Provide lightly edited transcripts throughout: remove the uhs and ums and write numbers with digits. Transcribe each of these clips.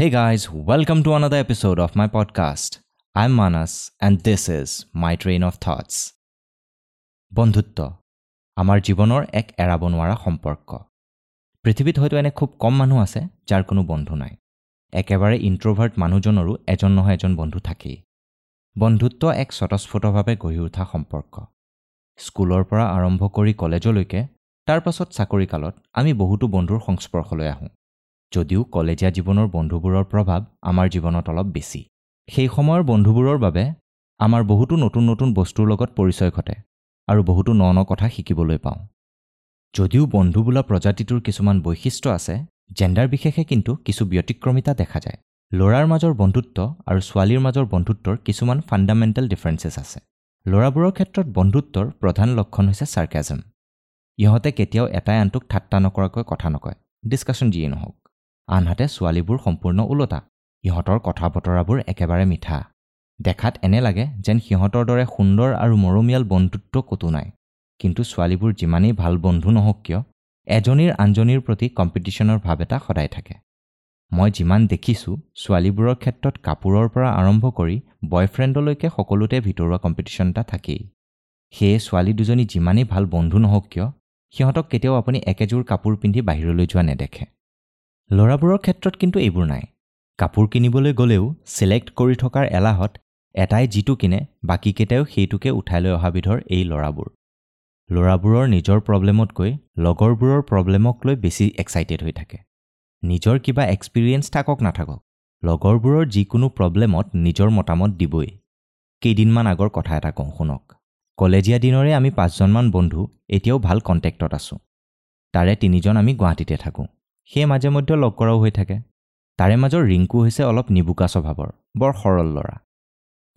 Hey guys, welcome to another episode of my podcast. I'm Manas and this is my train of thoughts. বন্ধুত্ব আমাৰ জীৱনৰ এক এৰাব নোৱাৰা সম্পৰ্ক। পৃথিৱীত হয়তো এনে খুব কম মানুহ আছে যাৰ কোনো বন্ধু নাই। একেবাৰে ইণ্ট্ৰভাৰ্ট মানুহজনৰো এজন নহয় এজন বন্ধু থাকেই। বন্ধুত্ব এক স্বতঃস্ফূৰ্তভাৱে গঢ়ি উঠা সম্পৰ্ক। স্কুলৰ পৰা আৰম্ভ কৰি কলেজলৈকে, তাৰ পাছত চাকৰিকালত আমি বহুতো বন্ধুৰ সংস্পৰ্শলৈ আহোঁ। যদিও কলেজীয়া জীৱনৰ বন্ধুবোৰৰ প্ৰভাৱ আমাৰ জীৱনত অলপ বেছি। সেই সময়ৰ বন্ধুবোৰৰ বাবে আমাৰ বহুতো নতুন নতুন বস্তুৰ লগত পৰিচয় ঘটে আৰু বহুতো ন ন কথা শিকিবলৈ পাওঁ। যদিও বন্ধু বোলা প্ৰজাতিটোৰ কিছুমান বৈশিষ্ট্য আছে, জেণ্ডাৰ বিশেষে কিন্তু কিছু ব্যতিক্ৰমিতা দেখা যায়। ল'ৰাৰ মাজৰ বন্ধুত্ব আৰু ছোৱালীৰ মাজৰ বন্ধুত্বৰ কিছুমান ফাণ্ডামেণ্টেল ডিফাৰেঞ্চেছ আছে। ল'ৰাবোৰৰ ক্ষেত্ৰত বন্ধুত্বৰ প্ৰধান লক্ষণ হৈছে চাৰ্কেজম। ইহঁতে কেতিয়াও এটাই আনটোক ঠাট্টা নকৰাকৈ কথা নকয়, ডিছকাশ্যন যিয়েই নহওক। আনহাতে ছোৱালীবোৰ সম্পূৰ্ণ ওলোটা। ইহঁতৰ কথা বতৰাবোৰ একেবাৰে মিঠা। দেখাত এনে লাগে যেন সিহঁতৰ দৰে সুন্দৰ আৰু মৰমীয়াল বন্ধুত্ব ক'তো নাই। কিন্তু ছোৱালীবোৰ যিমানেই ভাল বন্ধু নহওক কিয়, এজনীৰ আনজনীৰ প্ৰতি কম্পিটিশ্যনৰ ভাৱ এটা সদায় থাকে। মই যিমান দেখিছোঁ, ছোৱালীবোৰৰ ক্ষেত্ৰত কাপোৰৰ পৰা আৰম্ভ কৰি বয়ফ্ৰেণ্ডলৈকে সকলোতে ভিতৰুৱা কম্পিটিশ্যন এটা থাকেই। সেয়ে ছোৱালী দুজনী যিমানেই ভাল বন্ধু নহওক কিয়, সিহঁতক কেতিয়াও আপুনি একেযোৰ কাপোৰ পিন্ধি বাহিৰলৈ যোৱা নেদেখে। ল'ৰাবোৰৰ ক্ষেত্ৰত কিন্তু এইবোৰ নাই। কাপোৰ কিনিবলৈ গ'লেও ছিলেক্ট কৰি থকাৰ এলাহত এটাই যিটো কিনে বাকীকেইটাইও সেইটোকে উঠাই লৈ অহা বিধৰ এই ল'ৰাবোৰ। ল'ৰাবোৰৰ নিজৰ প্ৰব্লেমতকৈ লগৰবোৰৰ প্ৰব্লেমক লৈ বেছি এক্সাইটেড হৈ থাকে। নিজৰ কিবা এক্সপিৰিয়েঞ্চ থাকক নাথাকক, লগৰবোৰৰ যিকোনো প্ৰব্লেমত নিজৰ মতামত দিবই। কেইদিনমান আগৰ কথা এটা কওঁ শুনক। কলেজীয়া দিনৰে আমি 5জনমান বন্ধু এতিয়াও ভাল কণ্টেক্টত আছোঁ। তাৰে 3জন আমি গুৱাহাটীতে থাকোঁ। সেয়ে মাজে মধ্যে লগ কৰাও হৈ থাকে। তাৰে মাজৰ ৰিংকু হৈছে অলপ নিবোকা স্বভাৱৰ, বৰ সৰল ল'ৰা।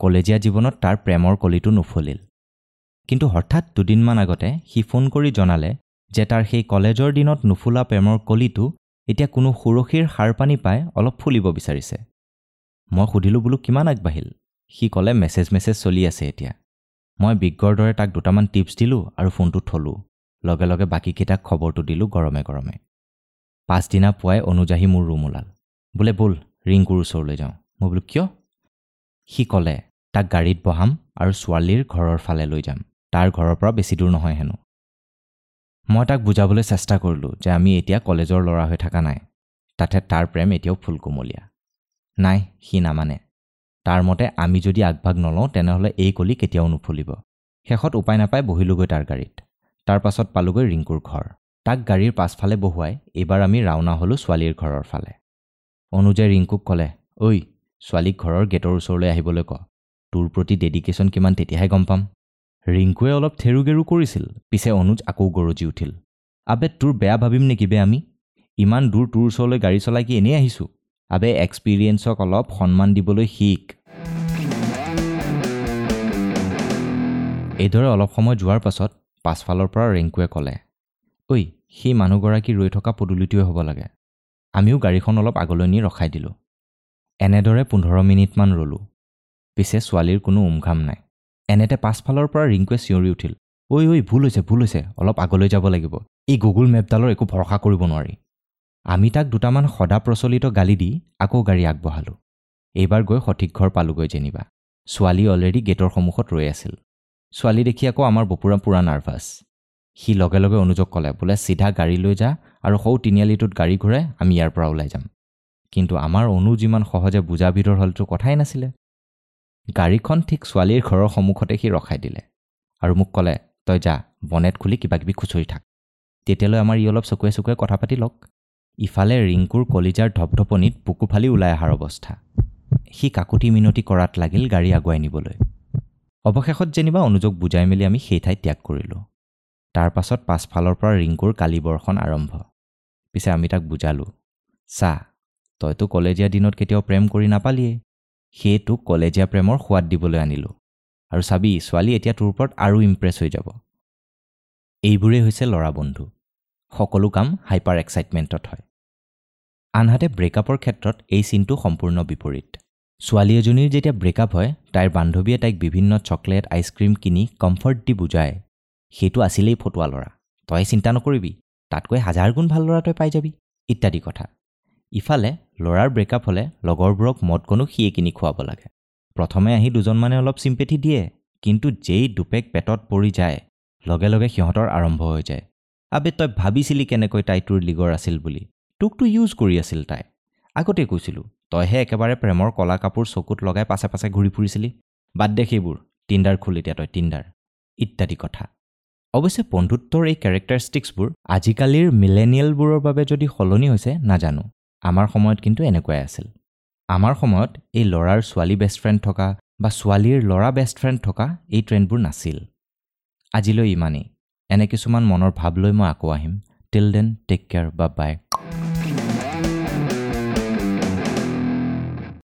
কলেজীয়া জীৱনত তাৰ প্ৰেমৰ কলিটো নুফলিল। কিন্তু হঠাৎ দুদিনমান আগতে সি ফোন কৰি জনালে যে তাৰ সেই কলেজৰ দিনত নুফুলা প্ৰেমৰ কলিটো এতিয়া কোনো সুৰক্ষীৰ সাৰ পানী পাই অলপ ফুলিব বিচাৰিছে। মই সুধিলোঁ, বোলো কিমান আগবাঢ়িল? সি ক'লে মেছেজ মেছেজ চলি আছে এতিয়া। মই বিজ্ঞৰ দৰে তাক দুটামান টিপছ দিলোঁ আৰু ফোনটো থলোঁ। লগে লগে বাকীকেইটাক খবৰটো দিলোঁ গৰমে গৰমে। পাছদিনা পুৱাই অনুজ আহি মোৰ ৰুম ওলাল। বোলে ব'ল ৰিংকুৰ ওচৰলৈ যাওঁ। মই বোলো কিয়? সি ক'লে তাক গাড়ীত বহাম আৰু ছোৱালীৰ ঘৰৰ ফালে লৈ যাম, তাৰ ঘৰৰ পৰা বেছি দূৰ নহয় হেনো। মই তাক বুজাবলৈ চেষ্টা কৰিলোঁ যে আমি এতিয়া কলেজৰ ল'ৰা হৈ থকা নাই, তাতে তাৰ প্ৰেম এতিয়াও ফুলকুমলীয়া। নাই, সি নামানে। তাৰ মতে আমি যদি আগভাগ নলওঁ তেনেহ'লে এই কলি কেতিয়াও নুফুলিব। শেষত উপায় নাপাই বহিলোগৈ তাৰ গাড়ীত। তাৰ পাছত পালোগৈ ৰিংকুৰ ঘৰ। তাক গাড়ীৰ পাছফালে বহুৱাই এইবাৰ আমি ৰাওনা হ'লোঁ ছোৱালীৰ ঘৰৰ ফালে। অনুজে ৰিংকুক ক'লে, ঐ ছোৱালীক ঘৰৰ গেটৰ ওচৰলৈ আহিবলৈ ক, তোৰ প্ৰতি ডেডিকেশ্যন কিমান তেতিয়াহে গম পাম। ৰিংকুৱে অলপ থেৰু-গেৰু কৰিছিল, পিছে অনুজ আকৌ গৰজি উঠিল, আবে তোৰ বেয়া ভাবিম নেকি বে, আমি ইমান দূৰ তোৰ ওচৰলৈ গাড়ী চলাই কি এনেই আহিছোঁ? আবে এক্সপিৰিয়েঞ্চক অলপ সন্মান দিবলৈ শিক। এইদৰে অলপ সময় যোৱাৰ পাছত পাছফালৰ পৰা ৰিংকুৱে ক'লে, ঐ সেই মানুহগৰাকী ৰৈ থকা পদূলিটোৱে হ'ব লাগে। আমিও গাড়ীখন অলপ আগলৈ নি ৰখাই দিলোঁ। এনেদৰে 15 মিনিটমান ৰ'লোঁ। পিছে ছোৱালীৰ কোনো উমঘাম নাই। এনেতে পাছফালৰ পৰা ৰিংকুৱে চিঞৰি উঠিল, ঐ ঐ ভুল হৈছে ভুল হৈছে, অলপ আগলৈ যাব লাগিব, এই গুগল মেপডালৰ একো ভৰসা কৰিব নোৱাৰি। আমি তাক দুটামান সদা প্ৰচলিত গালি দি আকৌ গাড়ী আগবঢ়ালোঁ। এইবাৰ গৈ সঠিক ঘৰ পালোগৈ যেনিবা। ছোৱালী অলৰেডি গেটৰ সন্মুখত ৰৈ আছিল। ছোৱালী দেখি আকৌ আমাৰ বপুৰা পূৰা নাৰ্ভাছ। সি লগে লগে অনুজক ক'লে, বোলে চিধা গাড়ী লৈ যা আৰু সৌ তিনিআলিটোত গাড়ী ঘূৰাই আমি ইয়াৰ পৰা ওলাই যাম। কিন্তু আমাৰ অনুজ ইমান সহজে বুজা বিধৰ হ'লতো কথাই নাছিলে। গাড়ীখন ঠিক ছোৱালীৰ ঘৰৰ সন্মুখতে সি ৰখাই দিলে আৰু মোক ক'লে, তই যা, বনেট খুলি কিবাকিবি খুচৰি থাক, তেতিয়ালৈ আমাৰ ই অলপ চকুৱে চকুৱে কথা পাতি লওক। ইফালে ৰিংকুৰ কলিজাৰ ধপধপনিত বুকু ফালি ওলাই অহাৰ অৱস্থা। সি কাকুতি মিনতি কৰাত লাগিল গাড়ী আগুৱাই নিবলৈ। অৱশেষত যেনিবা অনুজক বুজাই মেলি আমি সেই ঠাই ত্যাগ কৰিলোঁ। তাৰ পাছত পাছফালৰ পৰা ৰিংকুৰ কালিবৰ্ষণ আৰম্ভ। পিছে আমি তাক বুজালোঁ, চা, তইতো কলেজীয়া দিনত কেতিয়াও প্ৰেম কৰি নাপালিয়েই, সেয়ে তোক কলেজীয়া প্ৰেমৰ সোৱাদ দিবলৈ আনিলোঁ, আৰু চাবি ছোৱালী এতিয়া তোৰ ওপৰত আৰু ইমপ্ৰেছ হৈ যাব। এইবোৰেই হৈছে ল'ৰা বন্ধু। সকলো কাম হাইপাৰ এক্সাইটমেণ্টত হয়। আনহাতে ব্ৰেকআপৰ ক্ষেত্ৰত এই চিনটো সম্পূৰ্ণ বিপৰীত। ছোৱালী এজনীৰ যেতিয়া ব্ৰেকআপ হয়, তাইৰ বান্ধৱীয়ে তাইক বিভিন্ন চকলেট, আইচক্ৰীম কিনি কমফৰ্ট দি বুজায়, সেইটো আছিলেই ফটোৱা ল'ৰা, তই চিন্তা নকৰিবি, তাতকৈ 1000 গুণ ভাল ল'ৰা তই পাই যাবি, ইত্যাদি কথা। ইফালে ল'ৰাৰ ব্ৰেকআপ হ'লে লগৰবোৰক মদকণো সিয়ে কিনি খুৱাব লাগে। প্ৰথমে আহি দুজনমানে অলপ চিম্পেথি দিয়ে, কিন্তু যেই দুপেক পেটত পৰি যায় লগে লগে সিহঁতৰ আৰম্ভ হৈ যায়, আবে তই ভাবিছিলি কেনেকৈ তাই তোৰ লীগৰ আছিল বুলি, তোকতো ইউজ কৰি আছিল তাই, আগতেই কৈছিলোঁ তইহে একেবাৰে প্ৰেমৰ কলা কাপোৰ চকুত লগাই পাছে পাছে ঘূৰি ফুৰিছিলি, বাদ দে সেইবোৰ, টিণ্ডাৰ খোল এতিয়া তই টিণ্ডাৰ, ইত্যাদি কথা। অৱশ্যে বন্ধুত্বৰ এই কেৰেক্টাৰিষ্টিক্সবোৰ আজিকালিৰ মিলেনিয়েলবোৰৰ বাবে যদি সলনি হৈছে নাজানো, আমাৰ সময়ত কিন্তু এনেকুৱাই আছিল। আমাৰ সময়ত এই ল'ৰাৰ ছোৱালী বেষ্ট ফ্ৰেণ্ড থকা বা ছোৱালীৰ ল'ৰা বেষ্ট ফ্ৰেণ্ড থকা এই ট্ৰেণ্ডবোৰ নাছিল। আজিলৈ ইমানেই। এনে কিছুমান মনৰ ভাৱ লৈ মই আকৌ আহিম। Till then take care, bye bye.